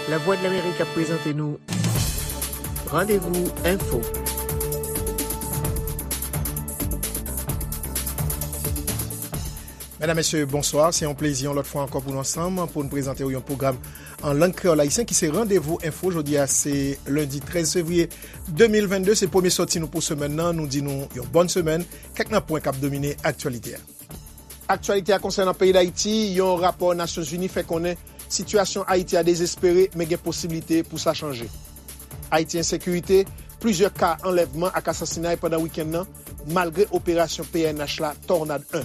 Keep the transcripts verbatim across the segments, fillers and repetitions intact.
Lavwadlamerik ap prezante nou Randevou Enfo. Medam, mesye, bonswa. Se yon plezi yon lòt fwa ankò pou nou ansanm pou n prezante w yon pwogram an lang kreyòl ayisyen ki se Randevou Enfo. Jodi a se lendi trèz fevriye de mil vennde. Se premye sòti nou pou semèn nan. Nou di nou yon bòn semèn. Kèk nan pwen k ap domine aktyalite a. Aktyalite a konsènan peyi Dayiti, yon rapò Nasyonzini fè konnen sitiyasyon Ayiti a dezespere, men gen posiblite pou sa chanje. Ayiti ensekirite, plizyè ka anlèvman ak asasinay pandan wikenn nan, malgre operasyon P N H la Tornade en.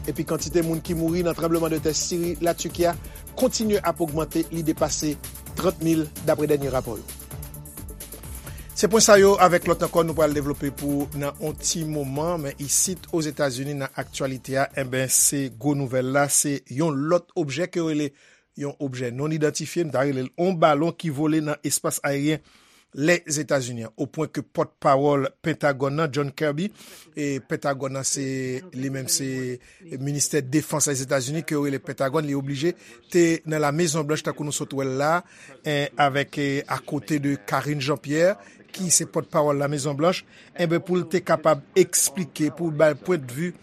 Epi kantite moun ki mouri nan tranblemanntè Siri, Latiki a kontinye ap ogmante, li depase trant mil dapre dènye rapò yo. Se pwen sa yo avèk lòt ankò nou pral devlope pou nan on ti moman, men isit Ozetazini nan aktyalite a, enben se gwo nouvèl la, se yon lòt objè ke yo rele yon objè non idantifye, m ta rele l on balon ki vole nan espas ayeryen Lèzetazini an, o pwen ke pòtpawòl Pentagòn nan, John Kirby, e Pentagòn nan se li menm se ministè defans Lèzetazini ke yo rele Pentagòn, li oblije te nan La Mezon Blanch tankou nou sot wè l la, en, avèk, eh, akote de Karine Jean-Pierre, ki se pòtpawòl La Mezon Blanch, enben pou l te kapab eksplike, pou l bay pwendvi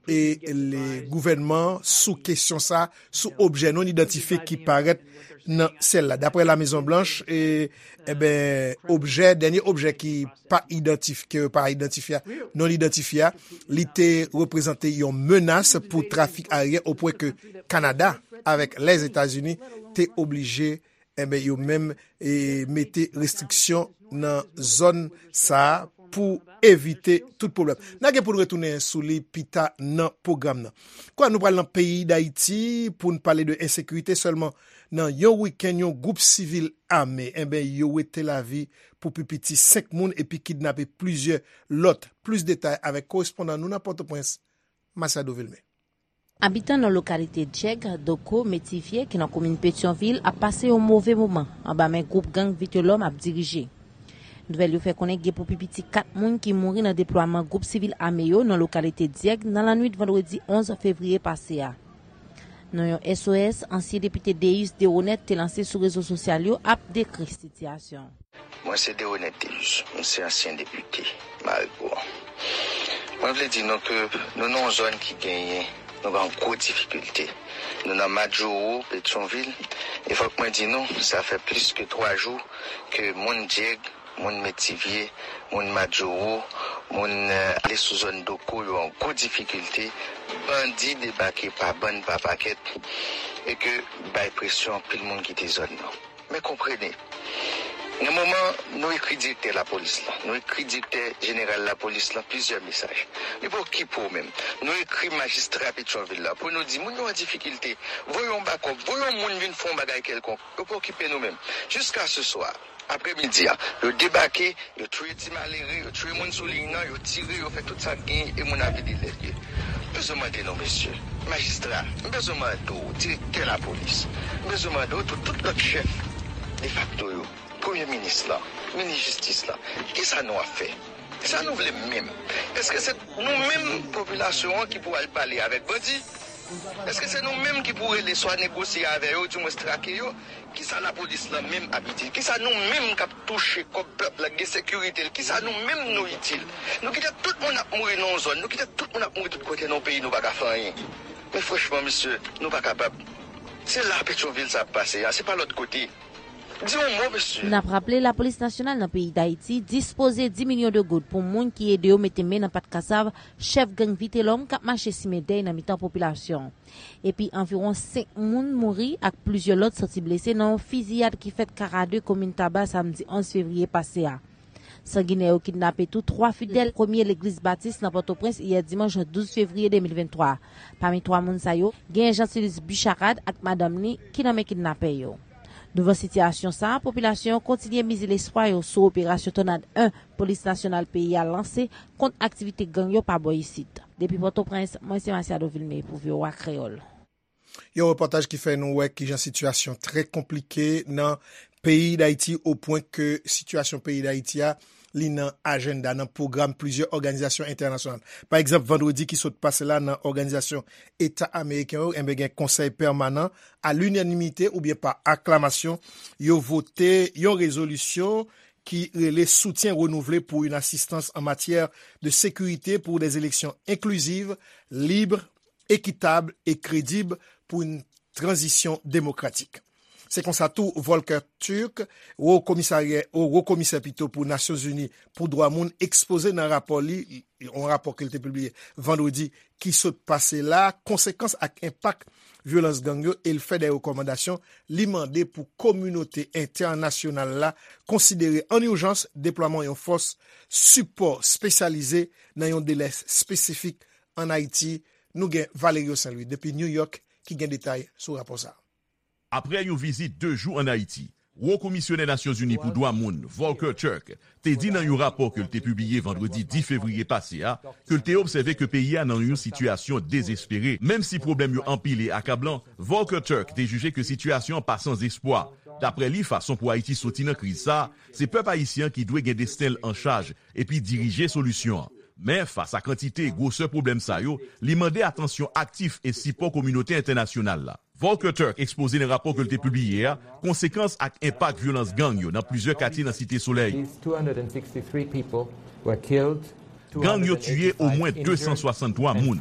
e le gouvènman sou kesyon sa, sou objè non idantifye ki parèt nan syèl la. Daprè La Mezon Blanch, e, enben, objè, dènye objè ki pa idantif-, ke pa idantifye, non idantifye a, li te reprezante yon menas pou trafik ayeryen, o pwen ke Kanada avèk Lèzetazini te oblije, enben, yo menm, e, mete restriksyon nan zòn sa a pou evite tout pwoblèm. N a gen pou n retounen sou li pita nan pwogram nan. Kwa, nou pral nan peyi Dayiti pou n pale de ensekirite sèlman. Nan yon wikenn, yon gwoup sivil ame, enben, yo wete lavi pou pi piti senk moun epi kidnape plizyè lòt. Plis detay avèk korespondan nou nan Pòtoprens, Masiado Vilmé. Abitan nan lokalite Dyèg, Doko, Metivye, ki nan komin Petyonvil, ap pase yon move moman anba men gwoup gang Vitelòm ap dirije. Nouvèl yo fè konnen gen pou pi piti kat moun ki mouri nan deplwaman gwoup sivil ame yo nan lokalite Dyèg nan lannwit vandredi onz fevriye pase a. Nan yon S O S, ansyen depite Deus Deroneth te lanse sou rezo sosyal yo ap dekri sitiyasyon. Mwen se Deroneth Deus, mwen se ansyen depite Marigo. Mwen vle di nou ke nou nan yon zòn ki genyen, nou gen yon gwo difikilte. Nou nan Madjoro, Petyonvil, e fòk mwen di nou, sa fè plis ke twa jou ke moun Dyèg, moun Metivye, moun Madjoro, moun, eh, ale sou zòn Doko, yo an gwo difikilte. Bandi debake pa bann, pa pakèt, e ke bay presyon anpil moun kite zòn nan. Men konprene, nan moman nou ekri direktè lapolis la, nou ekri direktè jeneral lapolis la plizyè mesaj. Li pa okipe w menm. Nou ekri majistra Petyonvil la pou nou di moun yo an difikilte. Voye yon bakòp, voye yon moun vin fè yon bagay kèlkonk. Yo pa okipe nou menm. Jiska se swa, apremidi a, yo debake, yo touye ti malere, yo touye moun sou liy nan, yo tire, yo fè tout sa k genyen e moun ap vide lèd. M bezwen mande nou, mesye, majistra, m bezwen mande w, direktè lapolis, m bezwen mande w tou, tout lòt chèf defakto yo, premye minis lan, minis jistis lan, kisa nou ap fè? Kisa nou vle menm? Èske se nou menm popilasyon an ki pou al pale avèk bandi? Èske se nou menm ki pou rele swa negosye avè yo, dimwens trake yo? Kisa lapolis lan menm ap itil? Kisa nou menm k ap touche kòb pèp la, gen sekirite l, kisa nou menm nou itil? Nou kite tout moun ap mouri nan yon zòn, nou kite tout moun ap mouri tout kote nan yon peyi nou pa ka fè anyen. Men franchman, mesye, nou pa kapab. Se la Petyonvil sa ap pase a, se pa lòt kote. Di yon mo, mesye. N ap raple, Lapolis Nasyonal nan peyi Dayiti dispoze dis milyon de goud pou moun ki ede yo mete men nan pat kasav chèf gang Vitelòm k ap mache simen dèy nan mitan popilasyon. Epi anviwon senk moun mouri ak plizyè lòt santi blese nan yon fiziyad ki fèt Karade, komin Taba, samdi onz fevriye pase a. Sanginè yo kidnape tou twa fidèl premye legliz batis nan Pòtoprens yè dimanch douz fevriye de mil venntwa. Pami twa moun sa yo, genyen Jean Silis Bicharad ak madanm li ki nan men kidnapè yo. Douvan sitiyasyon sa a, popilasyon an kontinye mize lespwa yo sou operasyon Tònad en polis nasyonal peyi a lanse kont aktivite gang yo pa bò isit. Depi Pòtoprens, mwen se Masiado Vilmé pou V O A Kreyòl. Yon repòtaj ki fè nou wè kijan sitiyasyon trè konplike nan peyi Dayiti, o pwen ke sitiyasyon peyi Dayiti a, li nan ajanda, nan pwogram plizyè òganizasyon entènasyonal. Pa egzanp, vandredi ki sot pase la, nan Òganizasyon Eta Ameriken yo, enben, gen konsèy pèmanan a linanimite oubyen pa aklamasyon, yo vote yon rezolisyon ki rele soutien renouvelé pour une assistance en matière de sécurité pour des élections inclusives, libres, équitables et crédibles pour une transition démocratique. Se konsa tou, Volker Turk, wo komisarya, wo, wo komisè pito pou Nasyonzini pou dwa moun, ekspoze nan rapò li, yon rapò ke l te pibliye vandredi ki sot pase la, konsekans ak enpak vyolans gang yo, e l fè de rekòmandasyon. Li mande pou kominote entènasyonal la konsidere an ijans deplwaman yon fòs sipò espesyalize nan yon delè espesifik ann Ayiti. Nou gen Valerio Saint Louis depi New York ki gen detay sou rapò sa a. Aprè yon vizit de jou ann Ayiti, Wo Komisyonè Nasyonzini pou Dwa Moun, Volker Turk, te di nan yon rapò ke l te pibliye vandredi dis fevriye pase a, ke l te obsève ke peyi a nan yon sitiyasyon dezespere. Menm si pwoblèm yo anpil e akablan, Volker Turk te jije ke sitiyasyon an pa san espwa. Daprè li, fason pou Ayiti soti nan kriz sa a, se pèp ayisyen an ki dwe gen desten l an chaj epi dirije solisyon an. Men, fas a kantite e gwosè pwoblèm sa yo, li mande atansyon aktif e sipò kominote entènasyonal la. Volker Turk ekspoze nan rapò ke l te pibliye a konsekans ak enpak vyolans gang yo nan plizyè katye nan Site Solèy. These two hundred and sixty-three people were killed. Gang yo tiye omwen de san swasanntwa moun,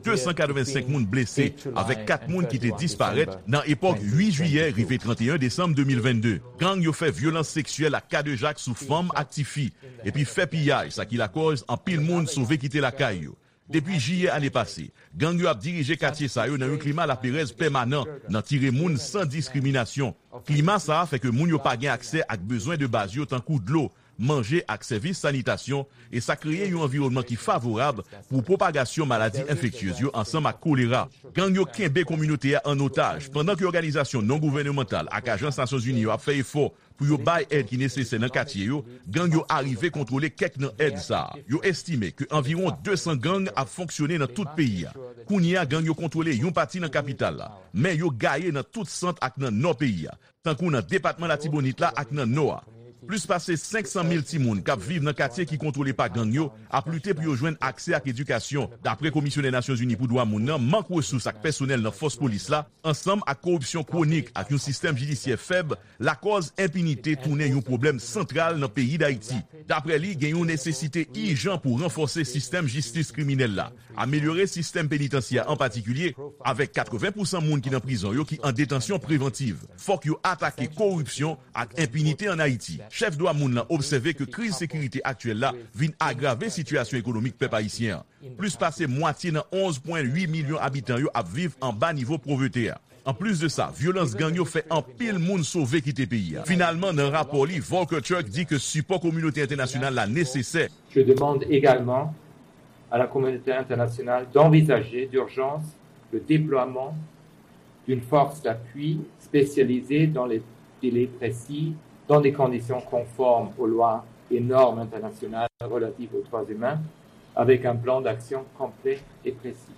de san katrevensenk moun blese, avèk kat moun ki te disparèt nan epòk uit jiyè rive trannteyen desanm de mil vennde. Gang yo fè vyolans seksyèl ak kadejak sou fanm ak tifi, epi fè piyaj, sa ki lakòz anpil moun sove kite lakay yo. Depi jiyè ane pase, gang yo ap dirije katye sa yo nan yon klima laperèz pèmanan, nan tire moun san diskriminasyon. Klima sa a fè ke moun yo pa gen aksè ak bezwen de baz yo tankou dlo, manje ak sèvis sanitasyon, e sa kreye yon anviwònman ki favorab pou pwopagasyon maladi enfektyez yo ansanm ak kolera. Gang yo kenbe kominote a an otaj, pandan ke òganizasyon non gouvènemantal ak ajans Nasyonzini yo ap fè efò pou yo bay èd ki nesesè nan katye yo, gang yo arive kontwole kèk nan èd sa a. Yo estime ke anviwon de san gang ap fonksyone nan tout peyi a. Kounye a, gang yo kontwole yon pati nan kapital la, men yo gaye nan tout sant ak nan nò peyi a, tankou nan depatman Latibonit la ak nan nò a. Plis pase senk san mil timoun k ap viv nan katye ki kontwole pa gang yo ap lite pou yo jwenn aksè ak edikasyon. Daprè Komisyonè Nasyonzini pou Dwa Moun nan, mank resous ak pèsonèl nan fòs polis la, ansanm ak koripsyon kwonik ak yon sistèm jidisyè fèb, lakòz enpinite tounen yon pwoblèm santral nan peyi Dayiti. Daprè li, gen yon nesesite ijan pou ranfòse sistèm jistis kriminèl la, amelyore sistèm penitansyè an patikilye, avèk katreven pousan moun ki nan prizon yo ki an detansyon prevantiv. Fòk yo atake koripsyon ak enpinite ann Ayiti. Chèf dwa moun lan obsève ke kriz sekirite aktyèl la vin agrave sitiyasyon ekonomik pèp ayisyen an. Plis pase mwatye nan onz pwen uit milyon abitan yo ap viv anba nivo povrete a. Anplis de sa, vyolans gang yo fè anpil moun sove kite peyi a. Finalman, nan rapò li, Volker Turk di ke sipò kominote entènasyonal la nesesè. Je demande également à la communauté internationale d'envisager d'urgence le déploiement d'une force d'appui spécialisée dans les délais précis, dans des conditions conformes aux lois et normes internationales relatives aux droits humains, avec un plan d'action complet et précis.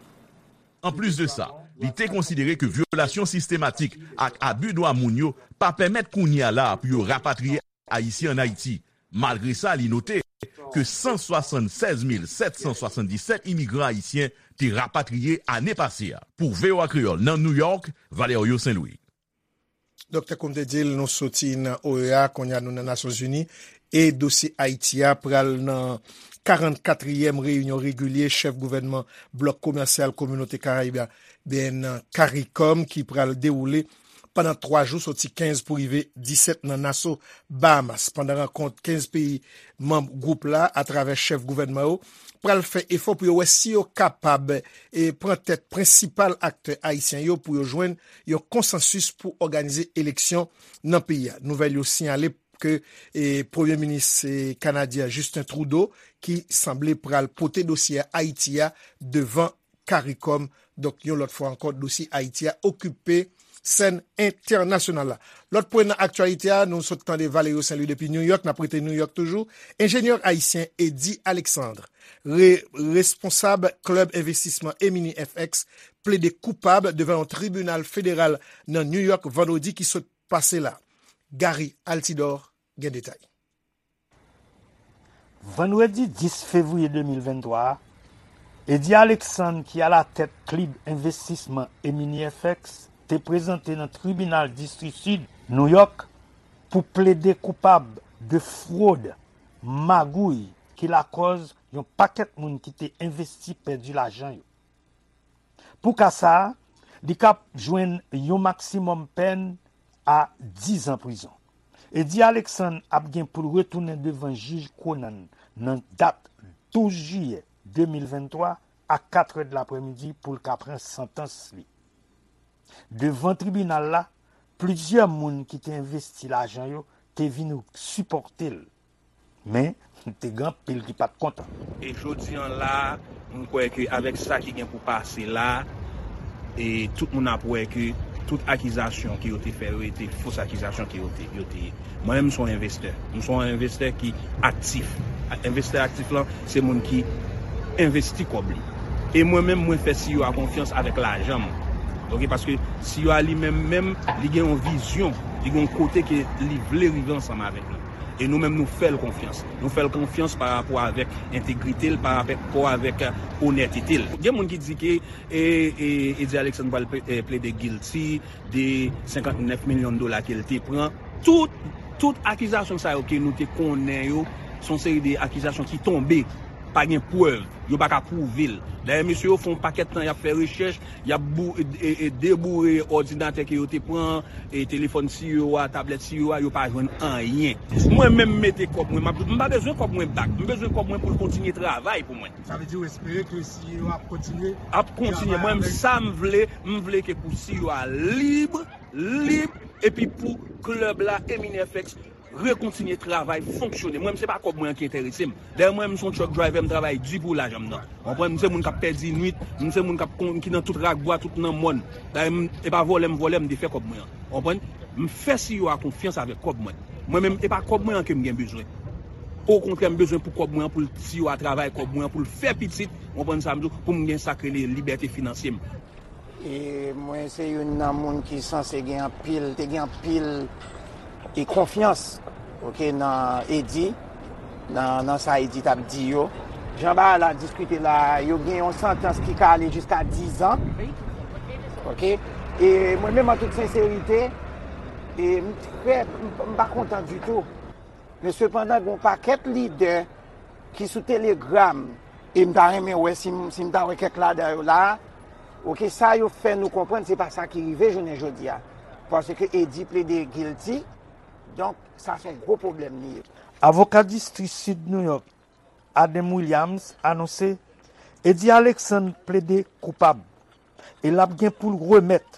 Anplis de sa, li te konsidere ke vyolasyon sistematik ak abi dwa moun yo pa pèmèt kounye a la a pou yo rapatriye Ayisyen ann Ayiti. Malgre sa, li note ke san swasannsèz mil sèt san swasanndisèt imigran ayisyen te rapatriye ane pase a. Pou V O A Kreyòl nan New York, Valerio Saint Louis. Donk, tankou m te di l, nou soti nan O E A, kounye a nou nan Nasyonzini, e dosye Ayiti a pral nan karannkatriyèm reyinyon regilye chèf gouvènman blòk komèsyal Kominote Karayib la, byen, CARICOM, ki pral dewoule pandan twa jou, soti kenz pou rive disèt nan Naso, Bahamas. Pandan rankont, kenz peyi manm gwoup la, atravè chèf gouvènman yo, pral fè efò pou yo wè si yo kapab, e, pran tèt prensipal aktè ayisyen yo pou yo jwenn yon konsansis pou òganize eleksyon nan peyi a. Nouvèl yo siyale ke, e, Premye Minis, e, kanadyen Justin Trudeau, ki sanble pral pote dosye Ayiti a devan CARICOM. Donk, yon lòt fwa ankò, dosye Ayiti a okipe sèn entènasyonal la. Lòt pwen nan aktyalite a, nou sot tande Valerio Saint Louis depi New York, n ap rete New York toujou. Enjenyè ayisyen Eddy Alexandre, re-, responsab klèb envestisman Emini F X, plede koupab devan yon tribinal federal nan New York vandredi ki sot pase la. Gary Altidor gen detay. Vandredi dis fevriye de mil venntwa a, Eddy Alexandre, ki alatèt klib envestisman Emini F X, te prezante nan Tribinal Distri Sid Nouyòk pou plede koupab de fwod, magouy, ki lakòz yon pakèt moun ki te envesti pèdi lajan yo. Pou ka sa a, li ka jwenn yon maksimòm pèn a diz an prizon. Eddy Alexandre ap gen pou l retounen devan jij Conan nan dat douz jiyè de mil venntwa a katrè de laprèmidi pou l ka pran santans li. Devan tribinal la, plizyè moun ki te envesti lajan yo te vin sipòte l. Men, te gen anpil ki pa t kontan. E jodi an la, m kwè ke avèk sa ki gen pou pase la, e tout moun ap wè ke tout akizasyon ke yo te fè yo, e te fos akizasyon ke yo te, yo te ye. Mwen menm, m se yon envestè. M se yon envestè ki aktif. Envestè aktif lan, se moun ki envesti kòb li. E mwen menm, mwen fè C E O a konfyans avèk lajan m. Oke, paske C E O a li menm, menm, li gen yon vizyon, li gen yon kote ke li vle rive ansanm avèk nou. E nou menm, nou fè l konfyans. Nou fè l konfyans pa rapò avèk entegrite l, pa rapò avèk, euh, onètete l. Gen moun ki di ke e, e, Eddy Alexandre pral ple- e, plede guilty de senkant nèf milyon dola ke l te pran. Tout, tout akizasyon sa yo ke nou te konnen yo, se yon seri de akizasyon ki tonbe. Pa gen prèv. Yo pa ka pwouve l. Dayè, mesye yo fè yon pakèt tan y ap fè rechèch, y ap bou- e, e, e, deboure òdinatè ke yo te pran, e telefòn C E O a, tablèt C E O a, yo pa jwenn anyen. Mwen menm mete kòb mwen, m ap di w, m pa bezwen kòb mwen back. M bezwen kòb mwen pou l kontinye travay pou mwen. Sa vle di w espere ke C E O ap kontinye? Ap kontinye. Mwen menm, sa m vle, m vle ke pou C E O a lib, lib, epi pou klèb la, Emini F X, rekontinye travay, fonksyone. Mwen menm, se pa kòb mwen an ki enterese m. Dayè, mwen menm, m se yon truck driver, m travay di pou lajan m nan. Ou konprann? M se moun k ap pèdi nwit, m se moun k ap kon- ki nan tout rak bwa, tout nan mòn. Dayè, m- e pa vòlè m vòlè, m te fè kòb mwen an. Ou konprann? M fè C E O a konfyans avèk kòb mwen. Mwen menm, e pa kòb mwen an ke m gen bezwen. Okontrè, m bezwen pou kòb mwen an, pou l C E O a travay kòb mwen an, pou l fè pitit, ou konprann sa m di w, pou m gen sa k rele libète finansye m. E mwen se youn nan moun ki sanse gen anpil, te gen anpil e konfyans, oke, nan Eddy, nan, nan sa Eddy t ap di yo. Jan bagay la diskite la, yo gen yon santans ki ka ale jiska diz an. Oke? E mwen menm, an tout senserite, e m trè, m, m pa kontan ditou. Men sepandan, gen yon pakèt lidè ki sou Telegram, e m ta renmen wè si m, si m ta wè kèk ladan yo la a. Oke, sa yo fè nou konprann, se pa sa ki rive jounen jodi a. Paske Eddy plede guilty, donk, sa se yon gwo pwoblèm li ye. Avoka distri Sid Nouyòk, Adam Williams, anonse Eddy Alexandre plede koupab e l ap gen pou l remèt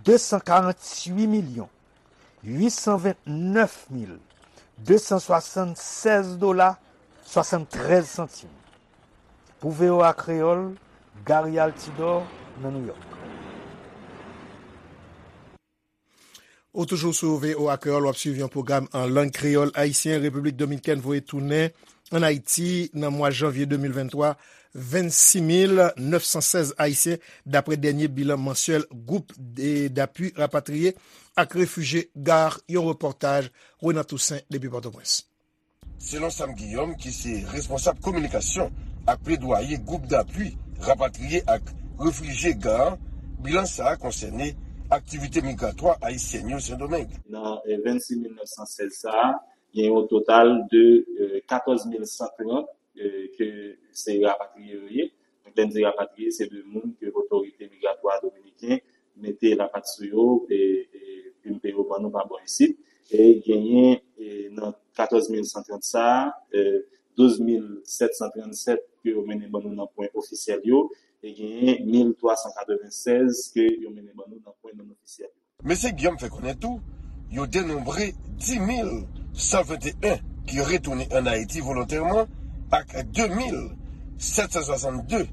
de san karanntuit milyon uit san vennèf mil de san swasannsèz dola swasanntrèz santim. Pou V O A Kreyòl, Gary Altidor, nan Nouyòk. Ou toujou sou V O A Kreyòl, w ap swiv yon pwogram an lang kreyòl ayisyen. Repiblik Dominikèn voye tounen ann Ayiti nan mwa janvye de mil venntwa vennsis mil nèf san sèz Ayisyen, daprè dènye bilan mansyèl Gwoup de- d'Appui Rapatriye ak Refijye, GARR, yon repòtaj Renan Toussaint depi Pòtoprens. Selon Sam Guillaume, ki se responsab kominikasyon ak pledwaye Gwoup d'Appui Rapatriye ak Refijye, GARR, bilan sa a konsène aktivite migratwa ayisyèn yo Sendomeng. Nan eh, vennsis mil nèf san sèz sa a, gen yon total de eh, katòz mil san trant eh, ke se rapatriye yo ye. Donk, lè n di rapatriye, se de moun ke otorite migratwa dominiken mete lapat sou yo e, e pimpe yo ban nou pa bò isit. E genyen e, nan katòz mil san trant sa a, e, douz mil sèt san trannsèt ke yo mennen ban nou nan pwen ofisyèl yo, e genyen mil twa san katrevennsèz ke yo mennen ban nou nan pwen non ofisyèl yo. Mesye Guillaume fè konnen tou, yo denonbre dis mil san venteyen ki retounen ann Ayiti volontèman ak de mil sèt san swasann de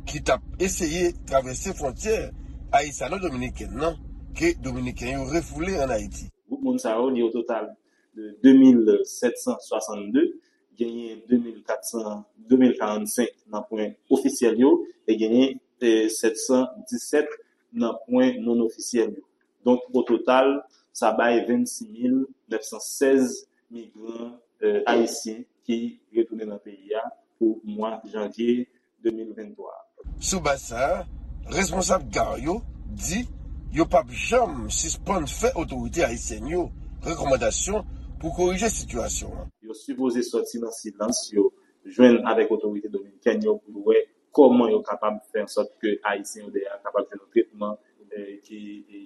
ki t ap eseye travèse fwontyè ayisyano-dominikèn nan ke Dominiken yo refoule ann Ayiti. Gwoup moun sa yo, li o total de de mil sèt san swasann de, genyen de mil kat san, de mil karannsenk nan pwen ofisyèl yo, e genyen eh, sèt san disèt nan pwen non ofisyèl yo. Donk, o total, sa bay vennsis mil nèf san sèz migran eh, ayisyen ki retounen nan peyi a pou mwa janvye de mil venntwa. Sou baz sa a, responsab gar yo di yo p ap janm sispann fè otorite ayisyèn yo rekòmandasyon pou korije sitiyasyon an. Yo sipoze sòti nan silans yo, jwenn avèk otorite dominikèn yo pou yo wè kòman yo kapab fè ansòt ke Ayisyen yo dèyè a kapab jwenn yon tretman, eh, ki,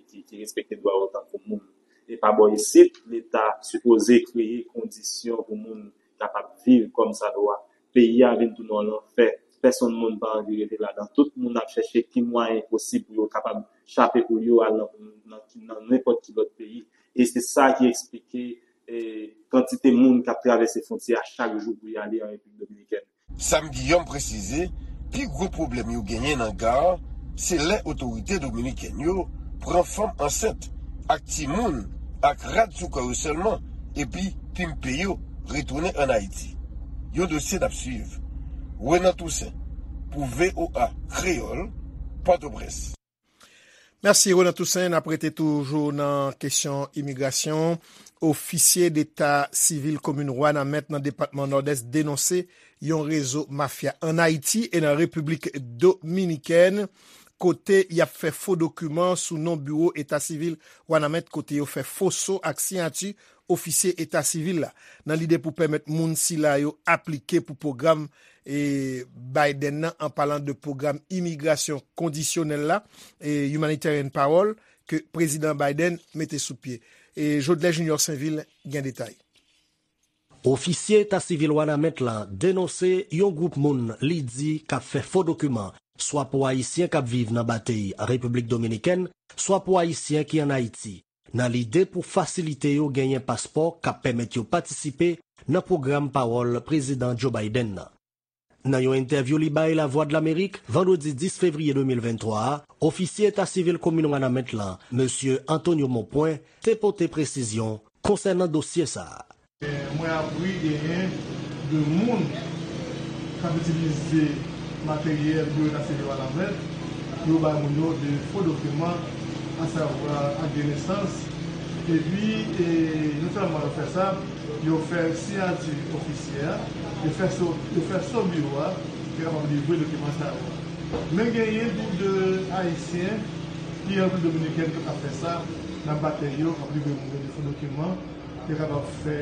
ki, ki respekte dwa yo tankou moun. E pa bò isit, Leta sipoze kreye kondisyon pou moun kapab viv kòm sa dwa. Peyi a vin tounen yon lanfè. Pèsonn moun pa anvi rete ladan. Tout moun ap chèche ki mwayen posib pou yo kapab chape pou yo al nan, nan, nan nenpòt ki lòt peyi. E se sa ki eksplike, eh, kantite moun k ap travèse fwontyè a chak jou pou y ale an Repiblik Dominikèn. Sam Guillaume presize, pi gwo pwoblèm yo genyen nan gar, se lè otorite dominikèn yo pran fanm ansent ak timoun ak rad sou kò yo sèlman, epi pimpe yo retounen ann Ayiti. Yon dosye n ap swiv. Renan Toussaint, pou V O A Kreyòl, Pòtoprens. Mèsi, Renan Toussaint. N ap rete toujou nan kesyon imigrasyon. Ofisye deta sivil komin Wanament nan depatman Nòdès denonse yon rezo mafya ann Ayiti e nan Repiblik Dominikèn, kote y ap fè fo dokiman sou non biwo eta sivil Wanament, kote yo fè foso ak siyati ofisye eta sivil la, nan lide pou pèmèt moun sila yo aplike pou pwogram, e, Biden nan, an palan de pwogram imigrasyon kondisyonèl la, e, Humanitarian Parole, ke Prezidan Biden mete sou pye. E Jodlè Junior Sainvil gen detay. Ofisye eta sivil Wanament lan denonse yon gwoup moun li di k ap fè fo dokiman, swa pou Ayisyen k ap viv nan batey Repiblik Dominikèn, swa pou Ayisyen ki ann Ayiti, nan lide pou fasilite yo genyen paspò k ap pèmèt yo patisipe nan pwogram pawòl Prezidan Joe Biden nan. Nan yon entèvyou li bay Lavwadlamerik vandredi dis fevriye de mil venntwa a, ofisye eta sivil komin Wanament lan, mesye Antonio Monpwen, te pote presizyon konsènan dosye sa a. Mwen apri genyen de moun k ap itilize materyèl biwo eta sivil Wanament pou yo bay moun yo de fo dokiman, asavwa ak de nesans. Epi, e, non sèlman yo fè sa, yo fè siyati ofisyè a, yo fè so, yo fè so biwo a, ki kapab livre dokiman sa yo. Men genyen tou de Ayisyen ki an Repiblik Dominikèn ki ap fè sa, nan batey yo, k ap livre moun yo de fo dokiman, yo kapab fè,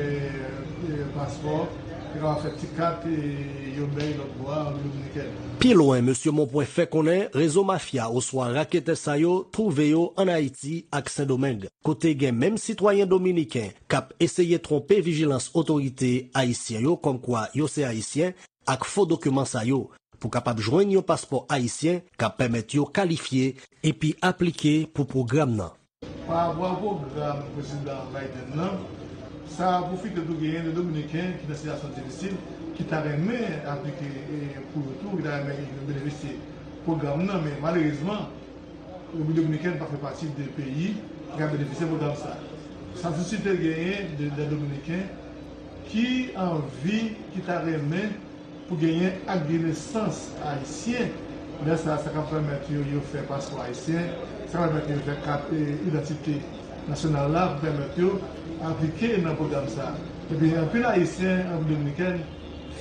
e, paspò, yo kapab fè ti kat, e, yo bay lòt bò a an Repiblik Dominikèn. Pi lwen, mesye Monpwen fè konnen rezo mafya oswa raketè sa yo twouve yo ann Ayiti ak Sendomeng, kote gen menm sitwayen dominiken k ap eseye twonpe vijilans otorite ayisyen yo kòmkwa yo se Ayisyen ak fo dokiman sa yo, pou kapab jwenn yon paspò ayisyen k ap pèmèt yo kalifye epi aplike pou pwogram nan. Pa rapò a pwogram Prezidan Biden nan, sa pwofite tou genyen de Dominiken ki nan sitiyasyon difisil, ki ta renmen aplike, e, pou yo tou, ki ta renmen benefisye pwogram nan, men malerezman, Repiblik Dominikèn pa fè pati de peyi ki ka benefisye pwogram sa. Sa sisite genyen de, de Dominiken ki anvi, ki ta renmen pou genyen ak de nesans ayisyen. Lè sa, sa ka pèmèt yo, yo fè paspò ayisyen, sa ka pèmèt yo fè kat, e, idantite nasyonal la, pou pèmèt yo aplike nan pwogram sa. Epi, anpil Ayisyen an Repiblik Dominikèn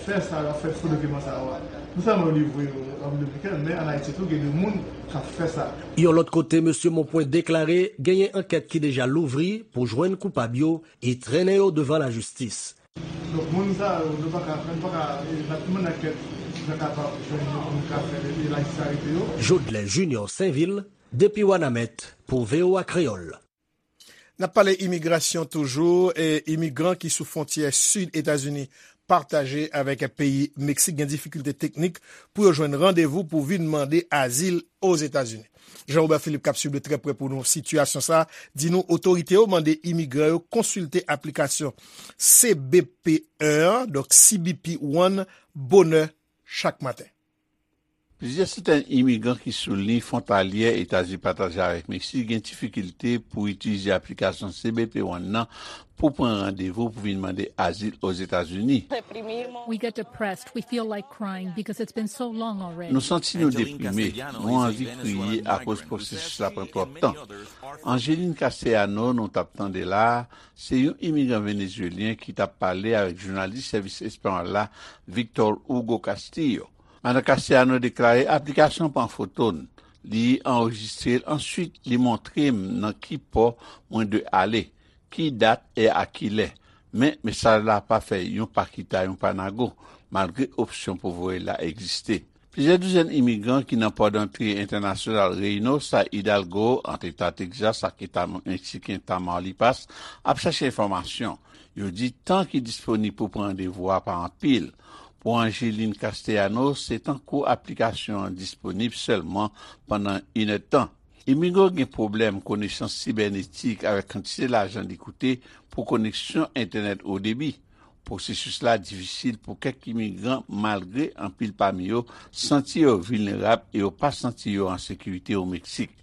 fè sa, yo ap fè fo dokiman sa yo a. Non sèlman yo livre yo an Repiblik Dominikèn, men ann Ayiti tou, gen de moun k ap fè sa. Yon lòt kote, mesye Monpwen deklare genyen ankèt ki deja louvri pou jwenn koupab yo e trennen yo devan lajistis. Donk, moun sa yo, nou pa ka, nou pa ka, e, n ap mande ankèt, nou kapab jwenn yo pou nou ka fè, e, lajistis arete yo. Jodlè Junior Sainvil, depi Wanament, pou V O A Kreyòl. N ap pale imigrasyon toujou, e imigran ki sou fwontyè sid Etazini pataje avèk peyi Meksik gen difikilte teknik pou yo jwenn randevou pou vin mande azil Ozetazini. Jean Robert Philippe k ap swiv de trè prè pou nou sitiyasyon sa a, di nou otorite yo mande imigran yo konsilte aplikasyon C B P en an, donk C B P One, bonè chak maten. Plizyè santèn imigran ki sou liy fwontalyè Etazini pataje avèk Meksik gen difikilte pou itilize aplikasyon C B P One nan pou pran randevou pou vin mande azil Ozetazini. We get depressed. We feel like crying because it's been so long already. Nou santi nou deprime, nou anvi kriye akoz pwosesis la pran twòp tan. Angeline Castellano, nou t ap tande la a, se yon imigran venezuelyen ki t ap pale avèk jounalis sèvis espanyòl la, Victor Hugo Castillo. Madan Castellano deklare aplikasyon pran foto n, li anrejistre l, answit li montre m nan ki pò mwen dwe ale, ki dat e a ki lè. Men, mesaj la pa fè yon pa kita yon pa nago, malgre opsyon pou voye l la egziste. Plizyè douzèn imigran ki nan pò dantre entènasyonal Reynosa, Hidalgo, ant Eta Texas ak Eta Meksiken Tamaulipas, ap chache enfòmasyon. Yo di tan ki disponib pou pran randevou a pa anpil. Pou Angeline Castellano, se tankou aplikasyon an disponib sèlman pandan inèdtan. Imigran gen pwoblèm konesans sibènetik avèk kantite lajan li koute pou koneksyon entènèt o debi. Pwosesis la difisil pou kèk imigran, malgre anpil pami yo santi yo vilnerab e yo pa santi yo an sekirite o Meksik.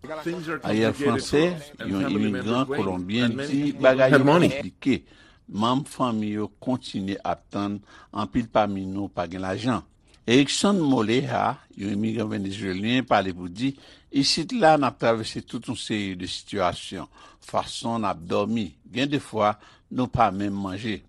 Ariel Franse, yon imigran kolonbyen, di bagay yo konplike. Manm fanmi yo kontinye ap tann, anpil pami nou pa gen lajan. Erickson Moleja, yon imigran venezuelyen, pale pou di, isit la n ap travèse tout yon seri de sitiyasyon, fason n ap dòmi, gen de fwa nou pa menm manje.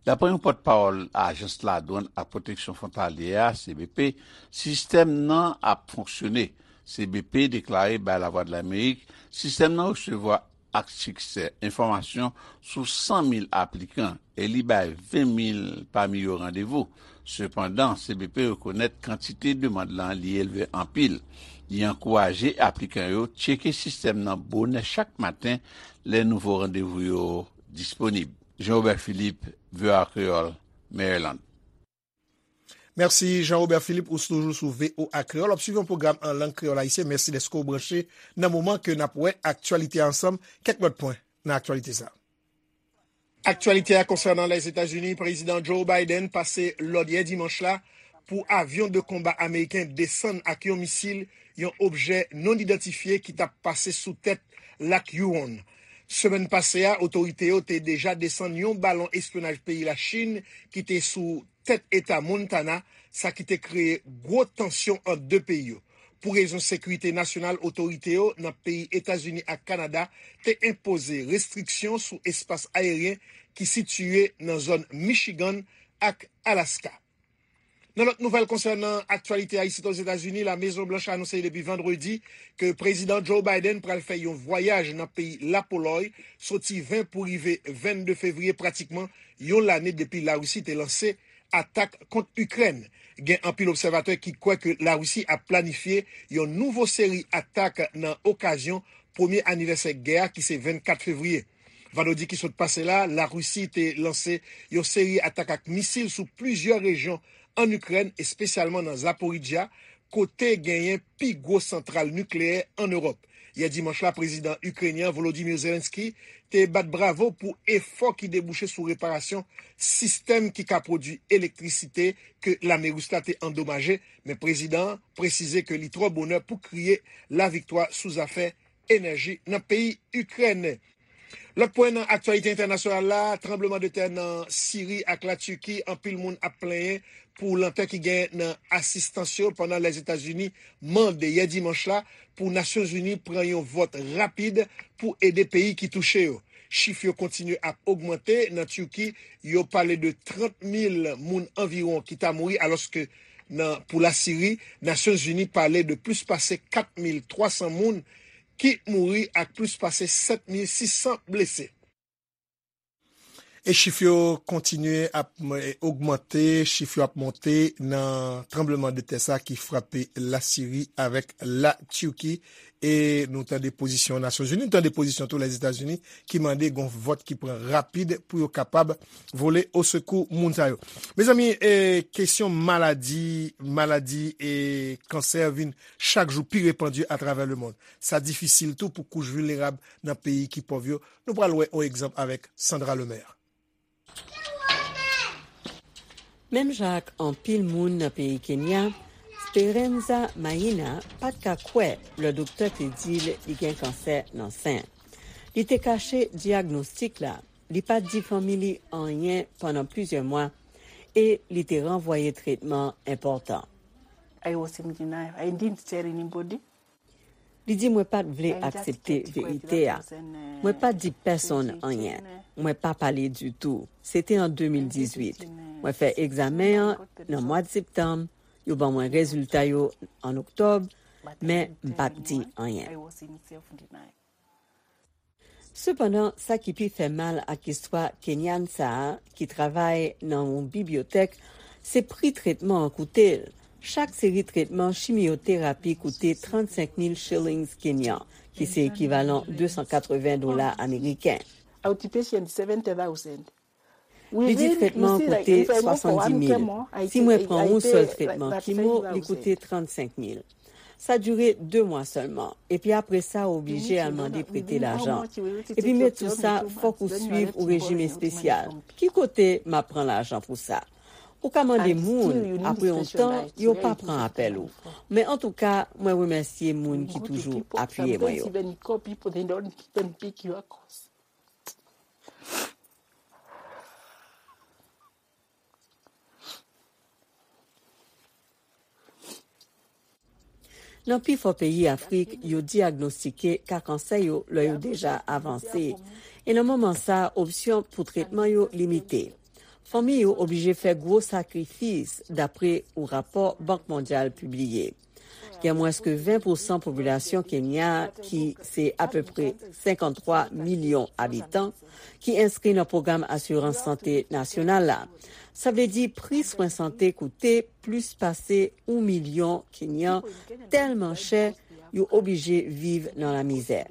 Dapre yon pòtpawòl Ajans Ladwann ak Pwoteksyon Fwontalyè a, C B P, sistèm nan ap fonksyone. C B P deklare bay Lavwadlamerik, sistèm nan resevwa ak siksè enfòmasyon sou san mil aplikan e li bay ven mil pami yo randevou. Sepandan, C B P rekonèt kantite demann lan li elve anpil. Li ankouraje aplikan yo tcheke sistèm nan bonè chak maten lè nouvo randevou yo disponib. Jean Robert Philippe, V O A Kreyòl, Maryland. Mèsi Jean Robert Philippe, ou toujou sou V O A Kreyòl. W ap swiv yon pwogram an lang kreyòl ayisyen. Mèsi dèske w branche nan moman ke n ap wè aktyalite a ansanm. Kèk lòt pwen nan aktyalite sa a. Aktyalite a konsènan Lèzetazini, Prezidan Joe Biden pase lòd yè dimanch la pou avyon de konba ameriken desann ak yon misil yon objè non idantifye ki t ap pase sou tèt Lak Huron. Semèn pase a, otorite yo te deja desann yon balon espyonaj peyi Lachin ki te sou tèt eta Montana, sa ki te kreye gwo tansyon ant de peyi yo. Pou rezon sekirite nasyonal, otorite yo nan peyi Etazini ak Kanada te enpoze restriksyon sou espas ayeryen ki sitiye nan zòn Michigan ak Alaska. Nan lòt nouvèl konsènan aktyalite a isit Ozetazini, La Mezon Blanch anonse depi vandredi ke Prezidan Joe Biden pral fè yon vwayaj nan peyi Lapolòy soti ven pou rive vennde fevriye, pratikman yon lane depi Larisi te lanse atak kont Ikrèn. Gen anpil obsèvatè ki kwè ke Larisi ap planifye yon nouvo seri atak nan okazyon premye anivèsè gè a ki se vennkat fevriye. Vandredi ki sot pase la, Larisi te lanse yon seri atak ak misil sou plizyè rejyon ann Ikrèn, espesyalman nan Zaporizhzhia, kote genyen pi gwo santral nikleyè ann Ewòp. Yè dimanch la, Prezidan Ikrenyen Volodymyr Zelensky te bat bravo pou efò ki debouche sou reparasyon sistèm ki ka pwodui elektrisite ke lame ris la te andomaje, men prezidan an presize ke li twò bonè pou kriye laviktwa sou zafè enèji nan peyi Ikrèn. Lòt pwen nan aktyalite entènasyonal la, tranbleman de tè nan Siri ak Latiki, anpil moun ap plenyen pou lantè ki gen nan asistans yo pandan Lèzetazini mande yè dimanch la pou Nasyonzini pran yon vòt rapid pou ede peyi ki touche yo. Chif yo kontinye ap ogmante. Nan Tiki, yo pale de trant mil moun anviwon ki ta mouri, alòske nan, pou Lasiri, Nasyonzini pale de plis pase kat mil twa san moun ki mouri ak plis pase sèt mil sis san blese. E chif yo kontinye ap ogmante, chif yo ap monte nan tranbleman de tè sa ki frape Lasiri avèk Latiki. E nou tande pozisyon Nasyonzini, nou tande pozisyon tou Lèzetazini ki mande gon vòt ki pran rapid pou yo kapab vole osekou moun sa yo. Mezanmi, e, kesyon maladi, maladi e kansè vin chak jou pi repandi atravè lemonn. Sa difisil tou pou kouch vilnerab nan peyi ki pòv yo. Nou pral wè yon egzanp avèk Sandra Lemaire. Menm jan ak anpil moun nan peyi Kenya, Speranza Maina pa t ka kwè lè doktè te di l li gen kansè nan sen. Li te kache dyagnostik la. Li pa t di fanmi li anyen pandan plizyè mwa e li te ranvwaye tretman enpòtan. I was in denial. I didn't tell anybody. Li di, mwen pa t vle aksepte verite a. Mwen pa t di pèsonn anyen. Mwen pa pale ditou. Se te an de mil dizuit. Mwen fè egzamen an nan mwa septanm. Yo ban mwen rezilta yo an oktòb, men m pa t di anyen. Sepandan, sa ki pi fè mal ak istwa Kenyan sa a, ki travay nan yon bibliyotèk, se pri tretman an koute l. Chak seri tretman chimyoterapi koute trannsenk mil shillings kenyan, ki se ekivalan de san katreven dola ameriken. Outpatient seventy thousand. Li di tretman an koute swasanndis mil. Si mwen pran yon sèl tretman kimo, li koute trannsenk mil. Sa dire de mwa sèlman. Epi apre sa, ou oblije al mande prete lajan. Epi met sou sa, fòk ou swiv ou rejim espesyal. Ki kote m ap pran lajan pou sa? Ou ka mande moun, apre yon tan, yo pa pran apèl ou. Men antouka, mwen remèsye moun ki toujou apiye mwen yo. Nan pifò peyi Afrik, yo dyagnostike ka kansè yo lè yo deja avanse. E nan moman sa, opsyon pou tretman yo limite. Fanmi yo oblije fè gwo sakrifis, dapre yon rapò Bank Mondyal pibliye. Gen mwens ke ven pousan popilasyon Kenya, ki se apepre senkanntwa milyon abitan, ki enskri nan pwogram asirans sante nasyonal la. Sa vle di pri swen sante koute plis pase yon milyon Kenyan tèlman chè yo oblije viv nan lamizè.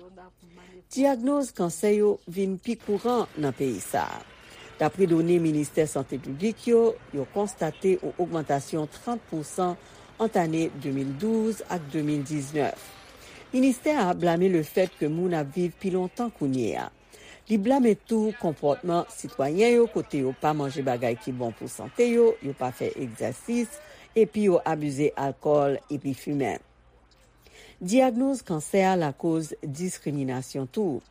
Dyagnoz kansè yo vin pi kouran nan peyi sa a. Dapre done Ministè Sante Piblik yo, yo konstate yon ogmantasyon trant pousan ant ane de mil douz ak de mil diznèf. Ministè a blame lefèt ke moun ap viv pi lontan kounye a. Li blame tou konpòtman sitwayen yo kote yo pa manje bagay ki bon pou sante yo, yo pa fè egzèsis, epi yo abize alkòl epi fimen. Dyagnoz kansè a lakoz diskriminasyon tou.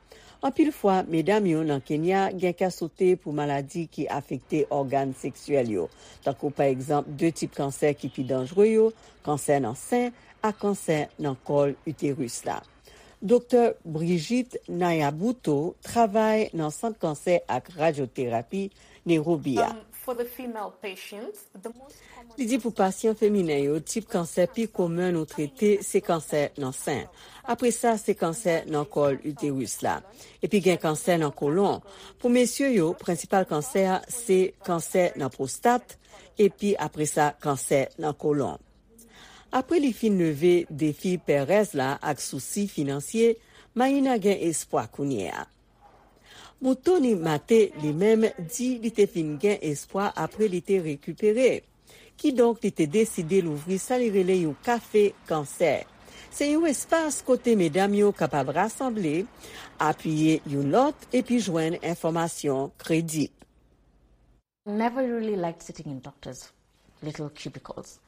Anpil fwa, medam yo nan Kenya gen kè sote pou maladi ki afekte ògàn seksyèl yo, tankou pa egzanp de tip kansè ki pi danjre yo, kansè nan sen ak kansè nan kòl iteris la. Doktè Brigitte Nayabuto travay nan Sant Kansè ak Radyoterapi Nairobi a. Li di pou pasyan feminen yo, tip kansè pi komen nou trete se kansè nan sen. Apre sa, se kansè nan kòl iteris la. Epi gen kansè nan kolon. Pou mesye yo, prensipal kansè a se kansè nan pwostat, epi apre sa, kansè nan kolon. Apre li fin leve defi pèrèz la ak sousi finansye, Maïna gen espwa kounye a. Muthoni Mate, li menm, di li te fin gen espwa apre li te rekipere. Kidonk, li te deside louvri sa li rele yon kafe kansè. Se yon espas kote medam yo kapab rasanble, apiye youn lòt, epi jwenn enfòmasyon kredib. Never really liked sitting in doctors' little cubicles.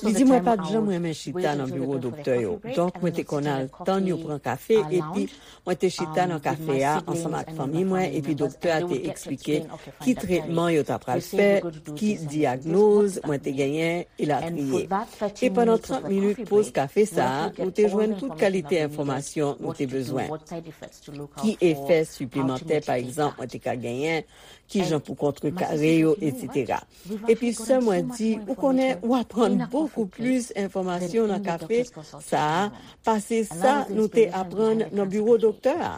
Li di, mwen pa t janm renmen chita nan biwo doktè yo, donk mwen te konn al tann yo pran kafe, epi mwen te chita nan kafe a ansanm ak fanmi mwen, epi doktè a te eksplike ki tretman yo ta pral fè, ki dyagnoz mwen te genyen, elatriye. E pandan trant minit poz kafe sa a, nou te jwenn tout kalite enfòmasyon nou te bezwen. Ki efè siplemantè, pa egzanp, mwen te ka genyen, kijan pou kontrekare yo, etsetera. Epi sè mwen di, ou konnen, ou aprann bokou plis enfòmasyon nan kafe sa a pase sa nou te aprann nan biwo doktè a.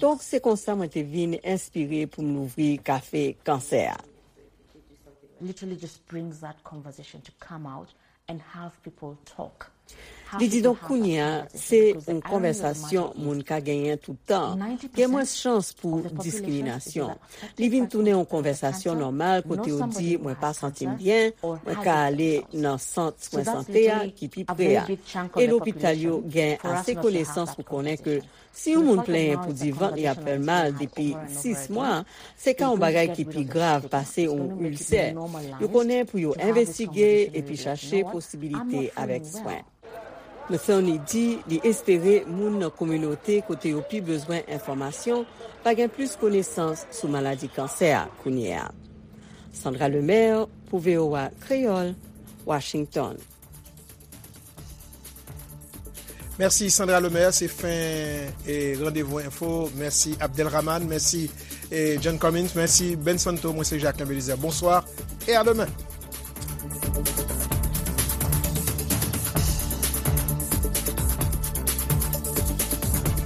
Donk, se konsa mwen te vin enspire pou m louvri kafe kansè a. Literally just brings that conversation to come out and have people talk. Li di, donk, kounye a, se yon konvèsasyon moun ka genyen tout tan. Gen mwens chans pou diskriminasyon. Li vin tounen yon konvèsasyon nòmal kote yo di, mwen pa santi m byen, mwen ka ale nan sant swen sante a ki pi pre a. E lopital yo gen ase konesans pou konnen ke si yon moun plenyen pou di vant li ap fè l mal depi sis mwa, se ka yon bagay ki pi grav pase yon ilsè. Yo konnen pou yo envestige epi chache posibilite avèk swen. Metheny di li espere moun nan kominote kote yo pi bezwen enfòmasyon va gen plis konesans sou maladi kansè a kounye a. Sandra Lemaire pou V O A Kreyòl, Washington. Mèsi Sandra Lemaire, se fen e Randevou Enfo. Mèsi Abdelrahman, mèsi e John Cummins, mèsi Ben Santo, mwen se Jacques Belizaire. Bonswa e a demen.